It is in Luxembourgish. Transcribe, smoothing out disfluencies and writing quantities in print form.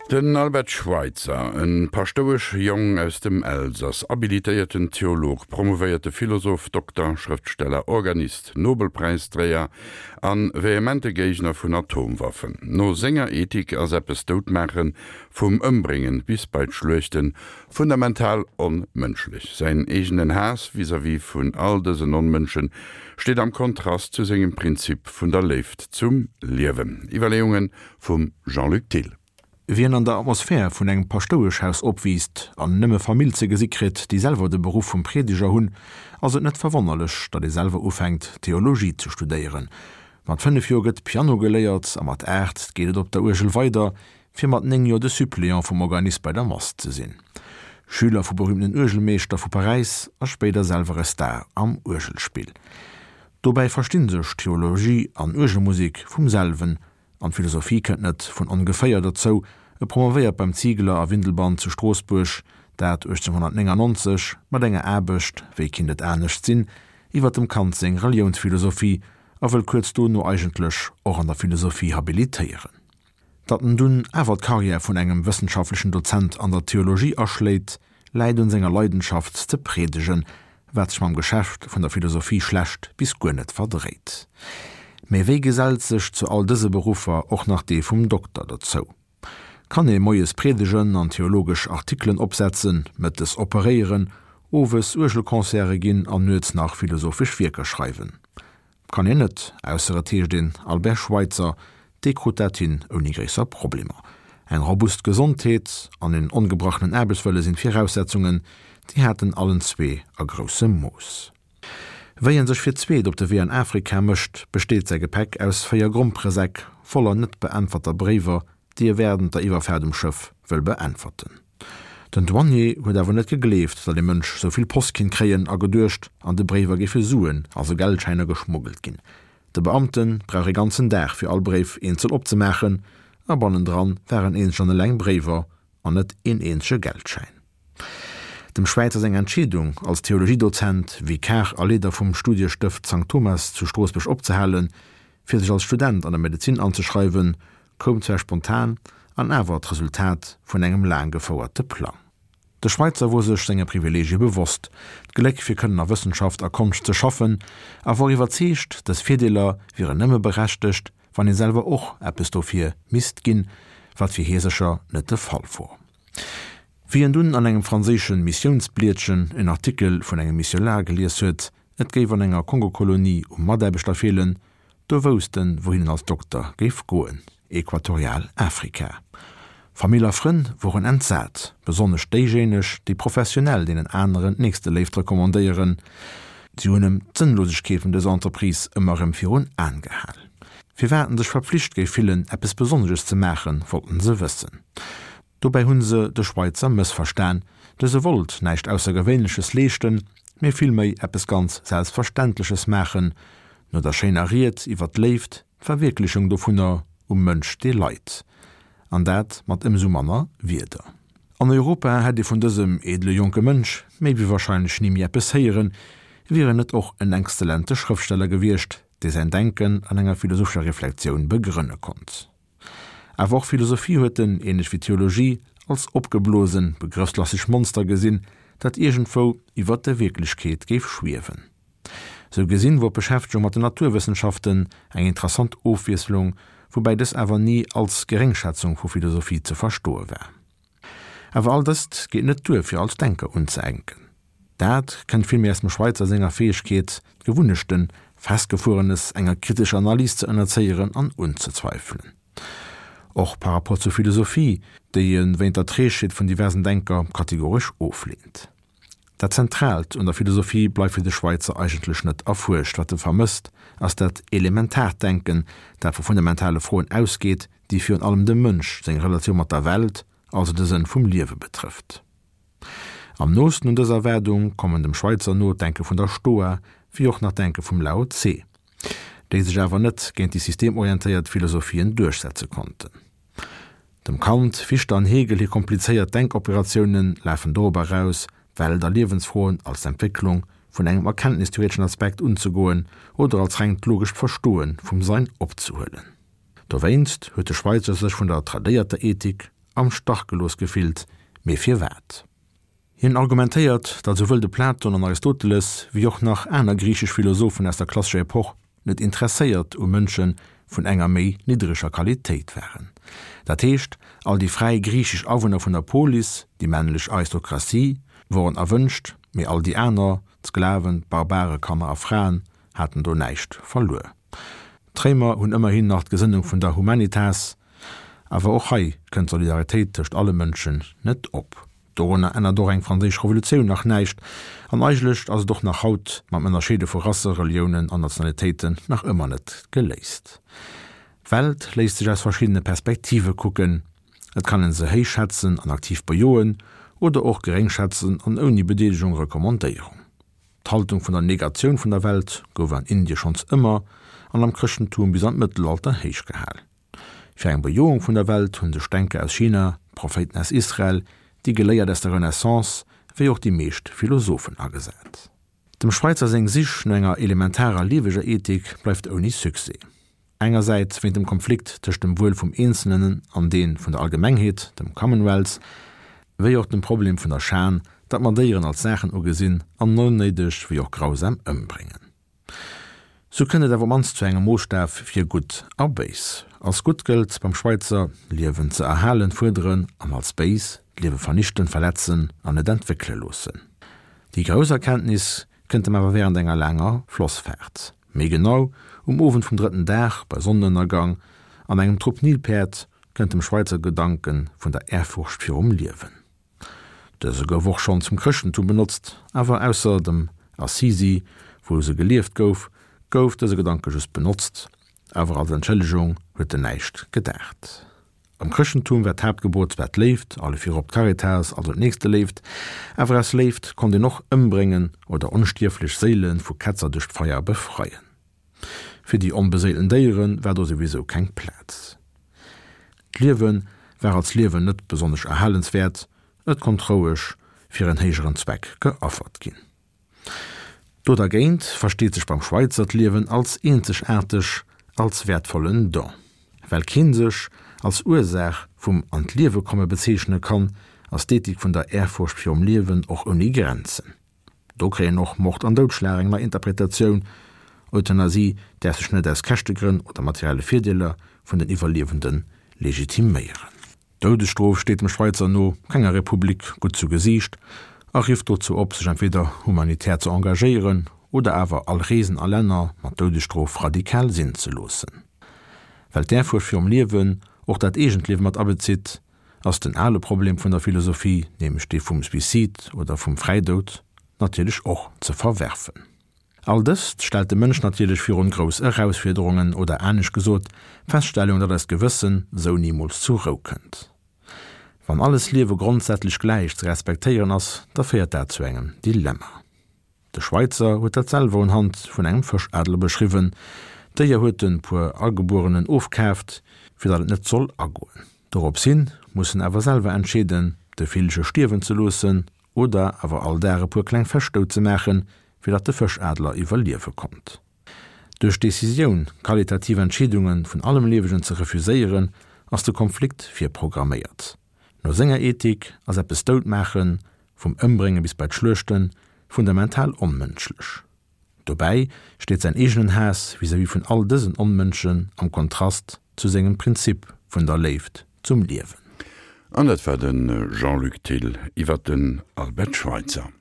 Den Albert Schweitzer, e Paschtouesch-Jong aus dem Elsass, habilitéierten Theolog, promovéierte Philosoph, Dokter, Schrëftsteller, Organist, Nobelpräisdréier a vehemente Géigner vun Atomwaffen. No senger Ethik ass eppes doutmaachen, vum Ëmbréngen bis bei d'Schluechten, fundamental onmënschlech. Säin eegenen Haass vis-à-vis vun all dësen Onmënschen steet am Kontrast zu sengem Prinzip vun der Léift zum Liewen. Iwwerleeungen vum Jean-Luc Thill. Wien an der Atmosphär vun engem Paschtoueschhaus opwiisst an nëmme Famill ze gesi kritt, déi selwer de Beruff vum Priedeger hunn, ass et net verwonnerlech, datt ee selwer ufänkt, Theologie ze studéieren. Mat 5 Joer gëtt Piano geléiert a mat 8 geet et op der Uergel weider, fir mat 9 Joer de Suppléant vum Organist bei der Mass ze sinn. Schüler vu berühmten Uergelmeeschter vu Paräis a spéider selwer e Star am Uergelspill. Dobäi verstinn sech Theologie an Uergelmusek vum selwen An d'Philosophie kënnt net vun ongeféier derzou, e promovéiert beim Ziegler a Windelband zu Stroossbuerg, dat 1899, mat enger Aarbecht, wéi kinnt et anescht sinn, iwwer dem Kant seng Reliounsphilosophie a wëll kuerz dono eigentlech och an der Philosophie habilitéieren. Datt en dunn awer d'Carrière vun engem wëssenschaftlechen Dozent an der Theologie aschléit, läit un senger Leidenschaft ze priedegen, wat sech mam Geschäft vun der Philosophie schlecht bis guer net verdréit. Mee wéi gesellt sech zu all dëse Beruffer och nach dee vum Dokter dozou? Kann ee moies priedegen an theologesch Artikelen opsetzen, mëttes operéieren, owes Uergelconcerte ginn an nuets nach philosophesch Wierker schreiwen? Kann een net, ausser et heescht een Albert Schweitzer, dee krut dat hin ouni gréisser Problemer. Eng robust Gesondheet an en ongebrachenen Aarbechtswëlle sinn d'Viraussetzungen, déi hat en allen zwee a groussem Mooss. Wéi en sech fir d'zweet op de Wee an Afrika mécht, besteet säi Gepäck aus 4 Gromperesäck voller net beäntwerter Bréiwer, déi e wärend der Iwwerfaart um Schëff wëll beäntwerten. Den Douanier huet awer net gegleeft, datt ee Mënsch sou vill Post kinnt kréien a geduecht, an de Bréiwer géife Suen, also Geldschäiner, geschmuggelt ginn. De Beamte brauch ee ganzen Dag fir all Bréif eenzel opzemaachen a bannendran waren eenzeg an eleng Bréiwer an net een eenzege Geldschäin. Dem Schwäizer seng Entscheedung, als Theologiedozent, Vikar a Leeder vum Studiestëft Sankt Thomas zu Stroossbuerg opzehalen, fir sech als Student an der Medezin anzeschreiwen, koum zwar spontan, an awer d'Resultat vun engem laang gefouerte Plang. De Schweitzer wor sech senger Privilegie bewosst, d'Gléck fir kënnen a Wëssenschaft a Konscht ze schaffen, a wor iwwerzeegt, dës Virdeeler wieren nëmme berechtegt, wann ee selwer och eppes dofir misst ginn, wat fir hie sécher net de Fall wor. Wéi en dunn an engem franséische Missiounsblietchen en Artikel vun engem Missionar gelies huet, et géif an enger Kongokolonie u Mataarbechter feelen, Do wousst en, wouhin en als Dokter géif goen, Equatorial Afrika. Famill a Frënn woren entsat, besonnesch déijéineg, déi professionell deenen aneren d'Nächsteléift recommandéieren. Si hunn em d'Sënnlosegkeet vun dëser Entreprise ëmmer erëm virun Aen gehal. Firwat en sech verpflicht géif fillen, eppes Besonnesches ze maachen, wollten se wëssen. Dobäi hunn se de Schweitzer mëssverstan, dëse wollt näischt Aussergewéinleches leeschten, mee villméi eppes ganz Selbstverständleches maachen, no der schéiner Ried iwwer d'Léift, d'Verwierklechung dovunner um Mënsch dee leit. An dat mat ëmsou manner Wierder. An Europa hätt ee vun dësem edele jonke Mënsch méi wéi wahrscheinlech ni méi eppes héieren, wier en net och en exzellente Schrëftsteller gewiescht, dee säin Denken an enger philosophescher Reflektioun begrënne konnt. Awer och Philosophie huet en, ähnlech wéi Theologie, als opgeblosen, begrëffslasseg Monster gesinn, dat iergendwou iwwert der Wierklechkeet géif schwiewen. Sou gesinn wor d'Beschäftegung mat den Naturwëssenschaften eng interessant Ofwiesslung, woubäi dës awer ni als Geréngschätzung vu Philosophie ze verstoe war. Awer all dëst geet net duer fir als Denker unzeenken. Dat kënnt villméi aus dem Schweitzer senger Fäegkeet, d'Gewunnechten, Festgefuerenes enger kritescher Analys ze ënnerzéieren an unzezweifelen. Och par rapport zur Philosophie, déi e wéint der Trägheet vun diversen Denker kategoresch ofleent. Dat Zentraalt un der Philosophie bleift fir de Schweitzer eigentlech net erfuerscht. Wat e vermësst, ass dat elementaart Denken, dat vu fundamentale Froen ausgeet, déi virun allem dem Mënsch seng Relatioun mat der Welt, also de Sënn vum Liewe betrëfft. Am noosten un dës Erwaardung kommen dem Schweitzer no d'Denke vun der Stoa, wéi och nach d'Denke vum Lao Tse, déi sech awer net géint déi systemorientéiert Philosophien duerchsetze konnten. Dem Kant, Fichte an Hegel hir komplizéiert Denkoperatioune lafen dorop eraus, Welt a Liewensfroen als d'Entwécklung vun engem erkenntnistheoreteschen Aspekt unzegoen oder als rengt logescht Verstoe vum Sein opzehuelen. Dowéinst huet de Schweitzer sech vun der tradéierter Ethik. am Stach gelooss gefillt, mee firwat? Hien argumentéiert, datt esouwuel de Platon an Aristoteles wéi och nach aner griichesch Philosophen aus der klassescher Epoch net interesséiert u Mënsche vun enger méi niddreger Qualitéit waren. Dat heescht, all déi fräi griichesch Awunner vun der Polis, déi männlech Aristokratie, woren erwënscht, mee all déi aner, d'Sklaven, d'Barbare, Kanner a Fraen, haten do näischt verluer. D'Réimer hunn ëmmerhin nach d'Gesënnung vun der Humanitas, awer och hei kënnt d'Solidaritéit tëscht alle Mënschen net op. Dorunner ännert och eng franséisch Revolutioun nach näischt, an eigentlech ass et och nach haut mam Ënnerscheede vu Rasse, Reliounen an Nationalitéiten nach ëmmer net geléist. D'Welt léisst sech aus verschiddene Perspektive kucken. Et kann een se héich schätzen an aktiv bejoen, oder och geréng schätzen an ouni Bedeelegung Recommandéierung. D'Haltung vun der Negatioun vun der Welt gouf an Indie schonns ëmmer an am Chrëschtentum bis an d'Mëttelalter héich gehal. Fir eng Bejoung vun der Welt hunn sech Denker aus China, Prophéiten aus Israel, déi Geléiert aus der Renaissance, wéi och déi meescht Philosophen agesat. Dem Schweitzer seng Sich no enger elementarer lieweger Ethik bleift ouni Succès. Engersäits wéint dem Konflikt tëscht dem Wuel vum Eenzelnen an dee vun der Allgemengheet, dem Commonwealth, wéi och dem Problem vun der Schan, datt mer Déieren als Saachen ugesinn an onnéideg wéi och grausam ëmbréngen. Sou kënnt et awer op mannst zu engem Moosstaf fir gutt a béis. Als gutt gëllt beim Schweitzer, Liewen ze erhalen, fuerderen, an als béis, d'Liewe vernichten, verletzen an net entwéckele loossen. Déi grouss Erkenntnis kënnt em awer wärend enger laanger Flossfaart, méi genau um Owend vum drëtten Dag bei Sonnenënnergang, an engem Trupp Nilpäerd kënnt dem Schweitzer Gedanke vun der Ehrfurcht virum Liewen. Dëse gouf och schonn zum Chrëschtentum benotzt, awer ausser dem Assisi, wou se gelieft gouf, gouf dëse Gedanke just benotzt, awer als Entschëllegung huet en näischt gedaacht. Am Chrëschtentum war d'Haaptgebot zwar d'Léift, alle virop d'Caritas, also d'Nächsteléift, awer aus Léift konnt een och ëmbréngen oder onstierflech Séile vu Ketzer duerch d'Feier befreien. Fir déi onbeséilten Déiere war do souwisou keng Plaz. D'Liewe war als Liewen net besonnesch erhalenswäert, et konnt roueg fir en héijeren Zweck geaffert ginn. Do dergéint versteet sech beim Schweitzer d'Liewen als eenzegaarteg, als wäertvollen Don. Well keen sech als Ursaach vum An-d'Liewe-komme bezeechne kann, ass d'Ethik vun der Ehrfurcht virum Liewen och ouni Grenzen. Do kréien och Mord an Doudschlag eng nei Interpretatioun. Euthanasie däerf sech net aus Käschtegrënn oder materielle Virdeeler vun den Iwwerliewende legitiméieren. D'Doudesstrof steet dem Schweitzer no kenger Republik gutt zu Gesiicht a rifft dozou op, sech entweder humanitär ze engagéieren oder awer all Reesen a Länner mat Doudesstrof radikal sinn ze loossen. Well d'Ehrfurcht virum Liewen och dat eegent Liewe mat abezitt, ass den ale Problem vun der Philosophie, nämlech dee vum Suicide oder vum Fräidoud, natierlech och ze verwerfen. All dëst stellt de Mënsch natierlech virun grouss Erausfiederungen, oder anescht gesot, d'Feststellung, datt eist Gewëssen sou nimools zur Rou kënnt. Wann alles Liewe grondsätzlech gläich ze respektéieren ass, da féiert dat zu engem Dilemma. De Schweitzer huet dat selwer un Hand vun engem Fëschadler beschriwwen, D'Déier huet en puer Agebuerenen ofkaaft, fir datt et net soll agoen. Dorops hin muss en awer selwer entscheeden, de Villche stierwen ze loossen oder awer all Dag e puer kleng Fësch dout ze maachen, fir datt de Fëschadler iwwerliewe konnt. Duerch d'Decisioun, qualitativ Entscheedunge vun allem Liewegen ze refuséieren, ass de Konflikt virprogramméiert. No senger Ethik ass eppes dout maachen, vum Ëmbrénge bis bei d'Schluechten, fundamental onmënschlech. Dobäi steet säin eegenen Haass vis-à-vis vun all dësen Onmënschen am Kontrast zu sengem Prinzip vun der Léift zum Liewen. An dat war de Jean-Luc Thill iwwer den Albert Schweitzer.